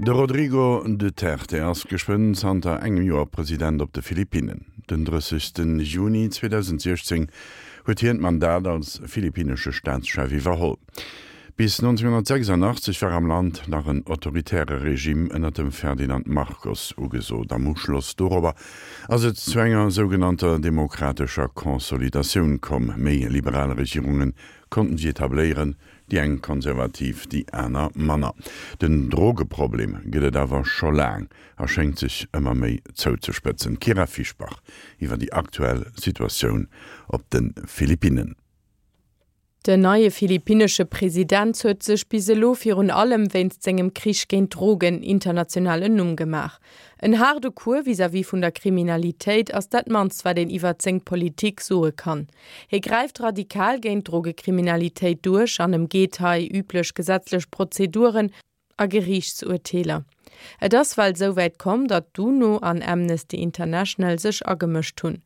De Rodrigo Duterte ass geschwënn zanter engem Joer President op de Philippinnen. Den 30 Juni 2016 huet hien d'Mandat als philippinnesche Staatschef iwwerholl. Bis 1986 war am Land nach en autoritäre Regime ënner dem Ferdinand Marcos ugesot. Am Uschloss dorobber ass et zu enger sougenannter demokratescher Consolidatioun komm. Méi liberal Regierunge konnten sech etabléieren, Déi eng konservativ, déi aner manner. Den Drogeproblem gëtt et awer scho laang a schéngt sech ëmmer méi zouzespëtzen. D'Kyra Fischbach iwwer déi aktuell Situatioun op de Philippinnen. Den neie philippinnesche President huet sech bis elo virun allem wéinst sengem Krich géint d'Drogen international en Numm gemaach. En haarde Cours vis-à-vis vun der Kriminalitéit ass dat mannst wat een iwwert seng Politik soe kann. Hie gräift radikal géint d'Drogekriminalitéit duerch an ëmgeet hei üblech gesetzlech Prozeduren a Geriichtsurteeler. Et ass well esouwäit komm, datt d'UNO an Amnesty International sech agemëscht hunn.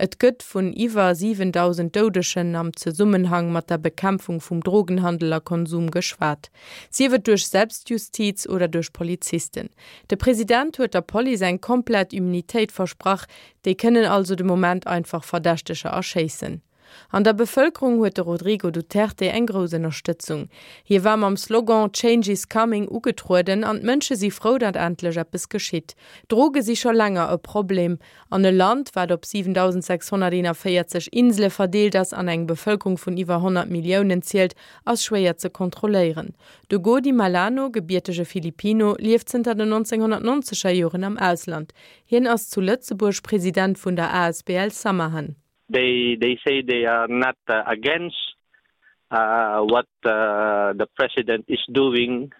Et gëtt vun iwwer 7.000 Doudegen am Zesummenhang mat der Bekämpfung vum Drogenhandel a Konsum geschwat, sief et duerch Selbstjustiz oder duerch Polizisten. De President huet der Police eng komplett Immunitéit versprach, Déi kënnen also de Moment einfach Verdächteger erschéissen. An der Bevëlkerung huet de Rodrigo Duterte eng grouss Ënnerstëtzung. Hie war mam Slogan Change is coming ugetrueden an d'Mënsche si frou, datt endlech eppes geschitt. Droge si scho länger e Problem an e Land, wat op 7.641 Insele verdeelt ass an eng Bevëlkerung vun iwwer 100 Milliounen zielt, ass schwéier ze kontrolléieren. De Gody Malano, gebiertege Filipino, lieft zënter den 1990er Joren am Ausland. Hien ass zu Lëtzebuerg President vun der asbl Samahan. They they say they are not against what the president is doing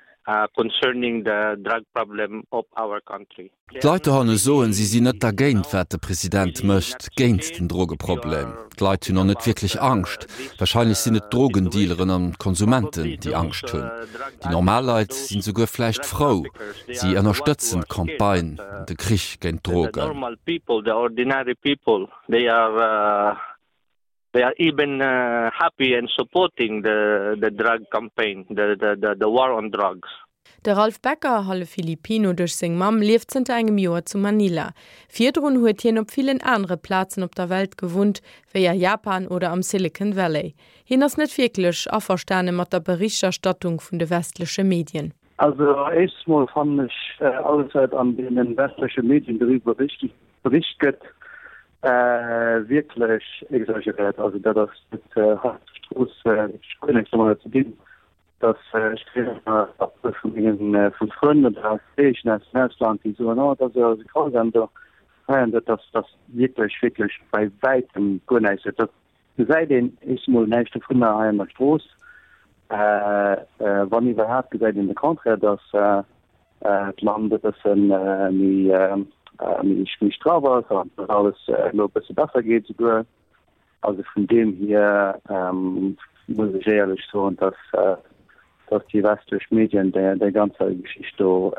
concerning the drug problem of our country. D'Leit dohanne soen, si sinn net dergéint, wat de President mécht géint den Drogeproblem. D'Leit hunn och net wierklech Angscht. Warscheinlech sinn et d'Drogendealeren an d'Konsumenten, déi Angscht hunn. Déi normal Leit sinn souguer vläicht frou. Si ënnerstëtzen d'Campagne, de Krich géint d'Drogen. They are even happy and supporting the the drug campaign, the the the war on drugs. De Ralph Becker, hallef Filipino duerch seng Mamm, lieft zënter engem Joer zu Manila. Virdrun huet hien op villen anere Plazen op der Welt gewunnt, wéi a Japan oder am Silicon Valley. Hien ass net wierklech averstane mat der Berichterstattung vun de westleche Medien. Also éischts mol fannen ech alles wat an deenen westleche Medien doriwwer bericht gëtt wierklech exageriert. Also dat ass net hei op der Strooss guer näischt domadder ze dinn, dass ech kréien ëmmer Appelle vu mengen vu Frënn oder Kolleegen aus dem Ausland déi soen, oh dat ass jo esou grausam do hei an dat ass dat wierklech wierklech bei wäitem guer näischt. Dat gesäit een éischts mol näischt dovunner hei an der Strooss. Wann iwwerhaapt gesäit een de Contraire, dass d'Land e bësse méi méi straff ass an dass alles elo e bësse besser geet esouguer. Also vun deem hier muss ech éierlech soen, dass dass déi westlech Medien déi ganzer Geschicht do,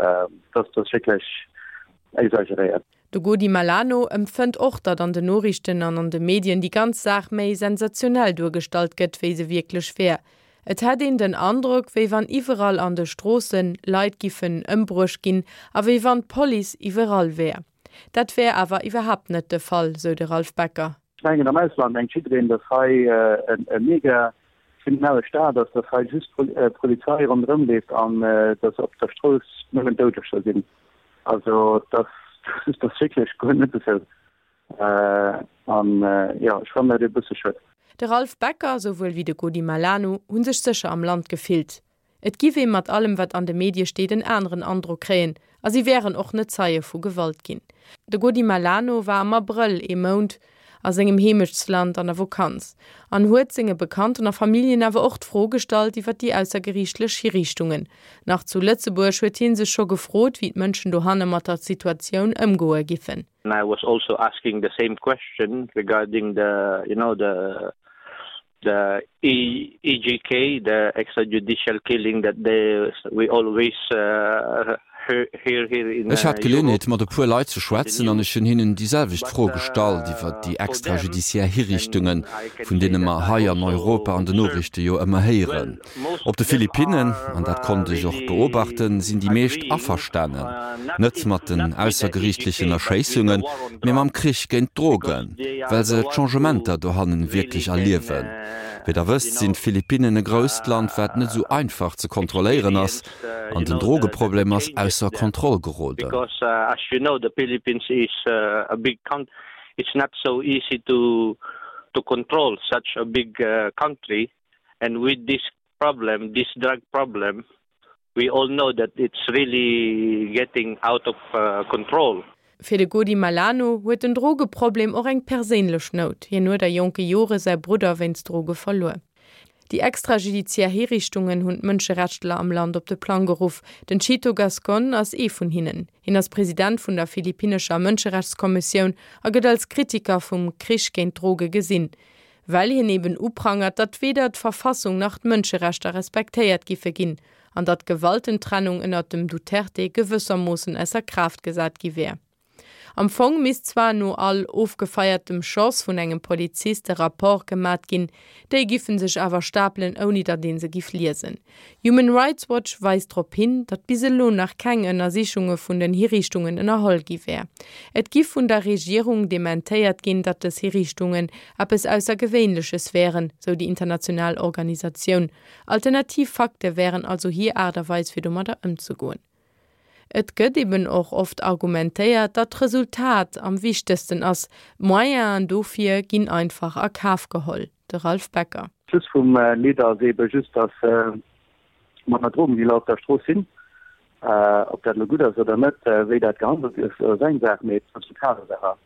dass dat wierklech exageréiert. De Godi Malano empfënnt och, datt an den Noriichten an an de Medien déi ganz Saach méi sensationell duergestallt gëtt, wéi se wierklech wär. Et hätt een den Androck, wéi wann iwwerall an de Stroosse Leit giffen ëmbruecht ginn a wéi wann d'Police iwwerall wär. Dat wär awer iwwerhaapt net de Fall, sou de Ralph Becker. Ech mengen, am Ausland mengt jiddereen, datt hei e mega kriminelle Staat ass, datt hei just d'Polizei ronderëm leeft an datt op der Strooss nëmmen Doudeger sinn. Also dat ass wierklech guer net esou. An jo, ech fannen dat e bësse schued. De Ralph Becker, souwuel wéi de Godi Malano hu sech sécher am Land gefillt. Et giff ee mat allem wat an de Medie steet en aneren Androck kréien a si wären och net Zeie vu Gewalt ginn. De Godi Malano war am Abrëll ee Mount a sengem Heemechtsland an der Vokanz an huet senge Bekannten a Familljen awer och d'Fro gestallt iwwer déi aussergeriichtlech Hiriichtungen. Nach zu Lëtzebuerg huet hie sech scho gefrot, wéi d'Mënschen dohanne mat der Situatioun ëmgoe giffen. And I was also asking the same question regarding the, you know, the the EJK, the extrajudicial killing that they we always uh, Ech hat d'Geleeënheet, mat e puer Leit ze schwätzen an ech hunn hinnen déi selwecht Fro gestallt iwwert déi extrajudiciaire Hiriichtungen, vun deene mer hei an Europa an den Noriichte jo ëmmer héieren. Op de Philippinnen, an dat konnt ech och beobachten, sinn déi meescht averstanen, net mat den aussergeriichtlechen Erschéissungen, mee mam Krich géint d'Drogen, well se d'Changementer dohannen wierklech erliewen. Wéi Der wësst, sinn d'Philippinnen e grousst Land, wat net esou einfach ze kontrolléieren ass, an den Drogeproblem ass ausser Kontroll geroden. And with this problem, this drug problem, we all know that it's really getting out of control. Fir de Godi Malano huet den Drogeproblem och eng perséinlech Nout, hien huet a jonke Jore säi Brudder wéinst Droge verluer. Déi extrajudiziär Hiriichtungen hunn d'Mënscherechtler am Land op de Plang geruff. Den Chito Gascon ass ee vun hinnen. Hien ass President vun der philippinnescher Mënscherechtskommissioun a gëtt als Kritiker vum Krich géint d'Droge gesinn. Well hien eben uprangert, datt weder d'Verfassung nach d'Mënscherechter respektéiert giffe ginn an datt d'Gewaltentrennung ënnert dem Duterte gewëssermoossen ausser Kraaft gesat gi wär. Am Fong misst zwar no all ofgefeiertem Schoss vun engem Polizist e Rapport gemat ginn, déi giffen sech awer stapelen ouni datt ee se giff liesen. Human Rights Watch weist drop hin, datt bis elo nach keng Ënnersichunge vun den Hiriichtungen ënnerholl gi wär. Et giff vun der Regierung dementéiert ginn, datt dës Hiriichtungen eppes Aussergewéinleches wären, sou déi international Organisatioun. Alternativ Fakte wären also hir Aart a Weis fir domadder ëmzegoen. Et gëtt eben och oft argumentéiert, datt d'Resultat am wichtegsten ass, d'Moyenen dofir ginn einfach a Kaf geholl. De Ralph Becker. Schluss vum Lidd ass ebe just, datt manner Drogendealer op der Strooss sinn. Ob dat elo gutt ass oder net, wéi dat gehandelt gëtt, ass eng Saach, mee d'Resultat ass awer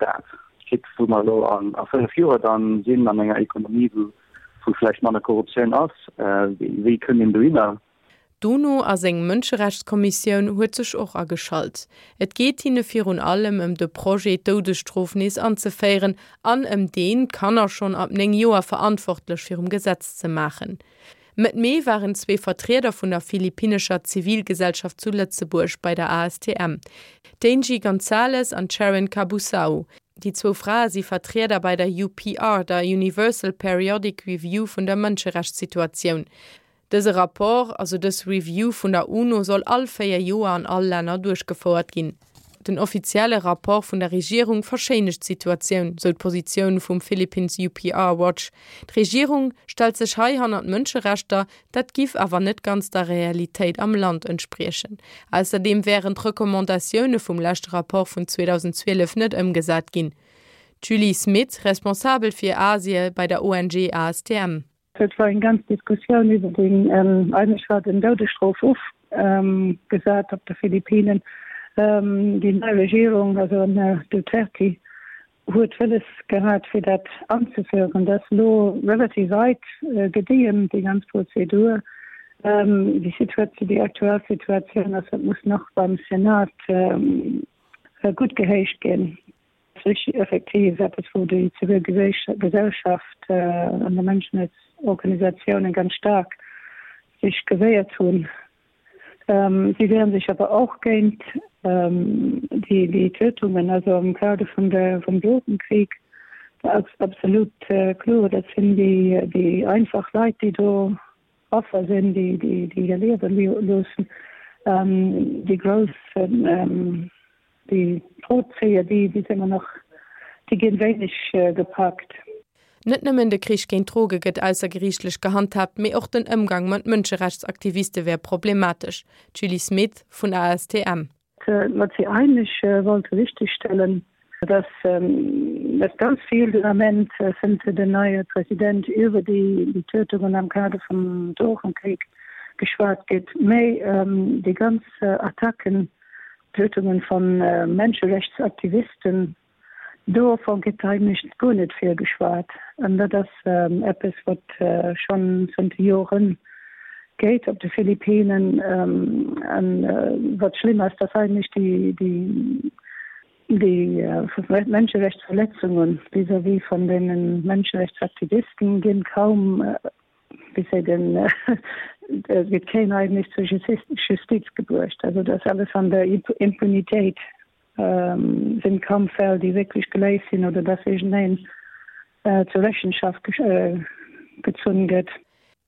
dat. Quitte wou mer elo a 5 Joer dann sinn an enger Ekonomie, wou vläicht manner Korruptioun ass, wéi kënnt een dohinner? D'UNO a seng Mënscherechtskommissioun huet sech och ageschalt. Et geet hinne virun allem ëm de Projet, d'Doudesstrof nees anzeféieren an ëm deen, d'Kanner schonn ab 9 Joer verantwortlech virum Gesetz ze maachen. Mëtt Mee waren zwee Vertrieder vun der philippinnescher Zivilgesellschaft zu Lëtzebuerg bei der ASTM, d'Angie Gonzalez an d'Sharon Cabusao. Déi zwou Frae si Vertrieder bei der UPR, der Universal Periodic Review vun der Mënscherechtssituatioun. Dëse Rapport, also dës Review vun der UNO soll all 4 Joer an all Länner duerchgefouert ginn. Den offizielle Rapport vun der Regierung verschéinegt d'Situatioun, sou d'Positioun vum Philippines UPR Watch. D'Regierung stellt sech hei hannert d'Mënscherechter, dat giff awer net ganz der Realitéit am Land entspriechen. Ausserdeem wären d'Recommandatioune vum leschte Rapport vun 2012 net ëmgesat ginn. D'Julie Smith, Responsabel fir Asie bei der ONG ASTM. Et war eng ganz Diskussioun iwwer den, eigentlech war den Doudesstrof ofgesat op de Philippinen. Déi nei Regierung, also den Här Duterte, huet wëlles gehat fir dat anzeféieren. Dat ass elo relativ weit gediehen, déi ganz Prozedur. Déi Situatioun, déi aktuell Situatioun ass, dat muss nach beim Senat guttgehéicht ginn. Ass effektiv eppes, wou déi zivil Gesellschaft an de Mënschenrechtsorganisatiounen ganz staark sech gewéiert hunn. Si wieren sech awer och géint déi Tötungen, also am Kader vun der vum Drogenkrieg war absolut kloer, dat sinn déi einfach Leit, déi do Affer sinn, déi hir Liewe loossen. Déi grouss Déi Drozéier, déi si ëmmer nach, déi ginn wéineg gepackt. Net nëmmen de Krich géint d'Droge gëtt aussergeriichtlech gehandhaabt, mee och den Ëmgang mat Mënscherechtsaktiviste wär problematesch. D'Julie Smith vun ASTM. Wat si eigentlech wollte richtegstellen, dass dass ganz vill den Ament, zënter den neie President, iwwer déi Tötungen am Kader vum Drogenkrieg geschwat gëtt, mä déi ganz Attacken, Tötungen von Menscherechtsaktivisten, dovon gëtt eigentlech guer net vill geschwat. An dat ass eppes, wat schonn zënter Joren geet op de Philippinen. An wat schlëmm ass, dass eigentlech déi Menscherechtsverletzungen vis-à-vis von deene Menscherechtsaktivisten ginn kaum. Wéi seet een, et gëtt keen eigentlech zur Justiz gebruecht. Also dat ass alles an der Impunitéit, sinn kaum Fäll, déi wierklech geléist sinn oder dass iergendeen zur Rechenschaft gezunn gëtt.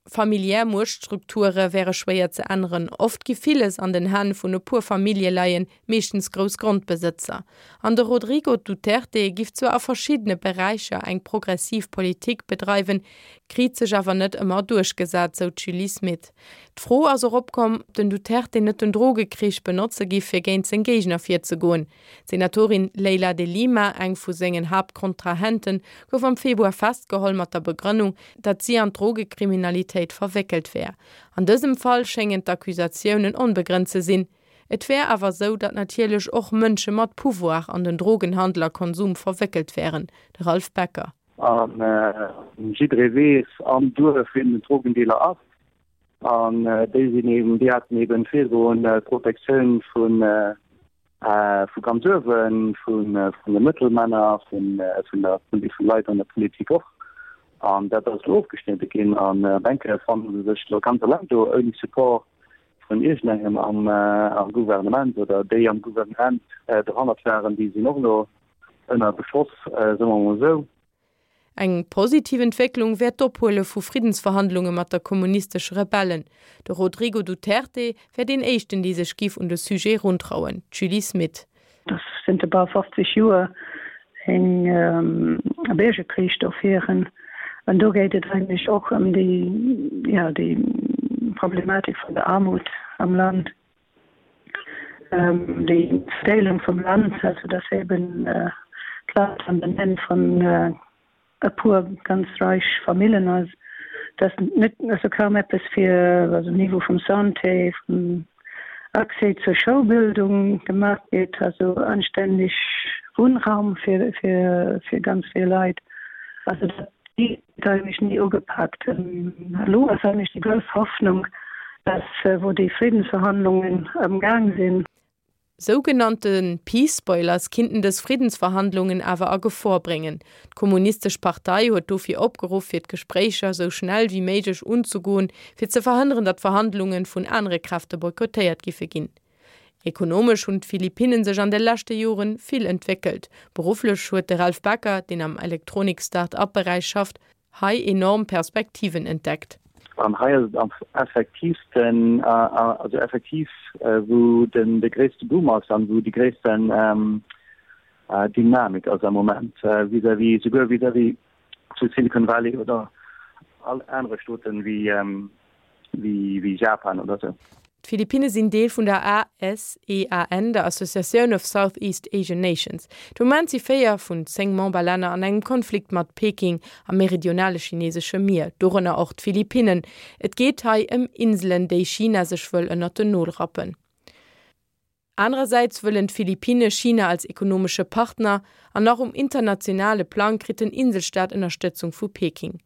Familiär Muechtstrukture wäre schwéier ze änneren. Oft gi villes an den Hänn vun e puer Famillje leien, meeschtens grouss Grondbesëtzer. An de Rodrigo Duterte giff zwar a verschiddene Beräicher eng progressiv Politik bedreiwen, kriit sech awer net ëmmer duerchgesat, sou d'Julie Smith. D'Fro ass och opkomm, ob den Duterte net den Drogekrich benotze giff, fir géint seng Géigner virzegoen. D'Senatorin Leila de Lima, eng vu sengen Haaptkontrahenten, gouf am Februar festgeholl mat der Begrënnung, datt si an d'Drogekriminalitéit verwéckelt wär. An dësem Fall schéngen d'Accusatiounen onbegrënnt ze sinn. Et wär awer sou, datt natierlech och Mënsche mat Pouvoir an den Drogenhandel a Konsum verwéckelt wären. De Ralph Becker. A jidderee weess am Duerf, wien den Drogendealer ass. An déi sinn eben, déi haten eben virdrun d'Protektioun vu vu ganz uewen, vun de Mëttelmänner, vun der vun Leit an der Politik och. An dat ass elo ofgeschnidde ginn. An op eng Kéier fanne se sech elo ganz eleng do, ouni Support vun iergendengem am am Gouvernement oder déi am Gouvernement dohannert waren, déi sinn och elo ënner Beschoss, soe mer emol esou. Eng positiv Entwécklung wär d'Ophuele vu Friddensverhandlunge mat der kommunistesche Rebellen. De Rodrigo Duterte wär deen éischten, dee sech giff un de Sujet runtrauen. D'Julie Smith. Dass zënter bal 50 Joer eng Biergerkrich do féieren. An do geet et eigentlech och ëm déi, jo, déi Problematik vun der Aarmut am Land. Déi Verdeelung vum Land, also dass eben d'Land an den Hänn vun e puer ganz reich Famillen ass, dass net, also kaum eppes fir, also um Niveau vum Santé, vum Accès zur Schoulbildung gemaach gétt, also anstänneg Wunnraum fir, fir, fir ganz vill Leit. Also dat gëtt eigentlech ni ugepaakt. Elo ass eigentlech déi grouss Hoffnung, dass, wou déi Friddensverhandlungen am Gaang sinn, Sougenannte Peace Spoilers kinnten dës Friddensverhandlungen awer a Gefor bréngen. D'Kommunistesch Partei huet dofir opgeruff, fir d'Gespréicher sou schnell wéi méiglech unzegoen, fir ze verhënneren, datt d'Verhandlunge vun anere Kräfte boykottéiert giffe ginn. Ekonomesch hunn d'Philippinnen sech an de leschte Jore vill entwéckelt. Berufflech huet de Ralph Becker, deen am Elektronik-Start-up-Beräich schafft, hei enorm Perspektiven entdeckt. An hei ass et am effektiivsten, also effektiv wou den de gréisste Boom ass an wou déi gréissten Dynamik ass am Moment vis-à-vis, souguer vis-à-vis zu Silicon Valley oder all anere Staaten wéi wéi Japan oder sou. D'Philippinne sinn Deel vun der ASEAN, der Associatioun of Southeast Asian Nations. De Moment si 4 vun 10 Memberlänner an engem Konflikt mat Peking am meridionale chinesesche Mier, dorënner och d'Philippinnen. Et geet hei ëm Inselen, déi China sech wëll ënnert den Nol rappen. Anerersäits wëllen d'Philippinne China als ekonomesche Partner, an nach um internationale Plang kritt den Inselstaat Ënnerstëtzung vu Peking.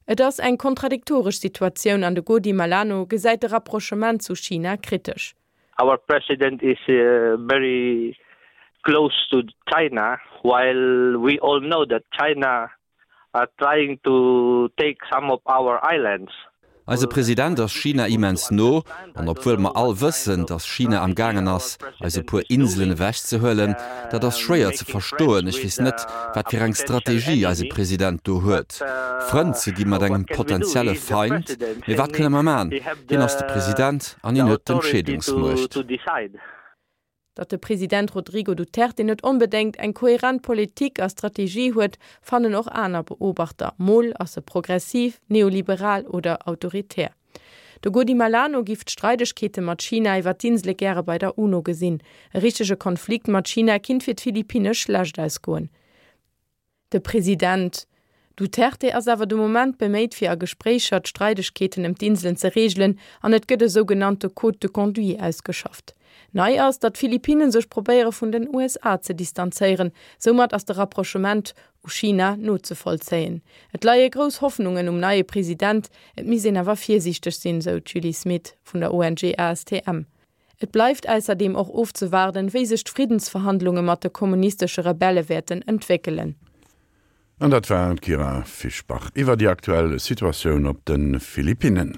Et ass eng kontradiktoresch Situatioun an de Godi Malano gesäit de Rapprochement zu China kritesch. Our president is very close to China, while we all know that China are trying to take some of our islands. Eise President ass China immens no, an obwuel mer all wëssen, datt China am gaangen ass, eis e puer Inselen ewechzehuelen, dat ass schwéier ze verstoen. Ech weess net, wat fir eng Strategie eise President do huet, Frënn ze gi mat engem potenzielle Feind. Mee wat kënne mer man? Hien ass de President an hien huet d'Entscheedungsmuecht. Datt de President Rodrigo Duterte net onbedéngt eng koherent Politik a Strategie huet, fannen och aner Beobachter. Mol ass e progressiv, neoliberal oder autoritär. De Godi Malano giff d'Streidegkeete mat China iwwer d'Insele gäre bei der UNO gesinn. E richtege Konflikt mat China kinnt fir d'Philippinne schlecht ausgoen. De President Duterte ass awer de Moment beméit fir a Gespréicher d'Streidegkeeten ëm d'Inselen ze reegelen an et gëtt e sougenannte Code de conduite ausgeschafft. Nei ass, datt d'Philippinen sech probéiere vun den USA ze distanzéieren. Soumat ass de Rapprochement u China nozevollzéien. Et leie grouss Hoffnungen um neie President, et misst een awer virsiichteg sinn, sou d'Julie Smith vun der ONG ASTM. Et bleift ausserdeem och ofzewaarden, wéi sech d'Friddensverhandlunge mat de kommunistesche Rebelle wäerten entwéckelen. An dat war d'Kyra Fischbach iwwer déi aktuell Situatioun op de Philippinnen.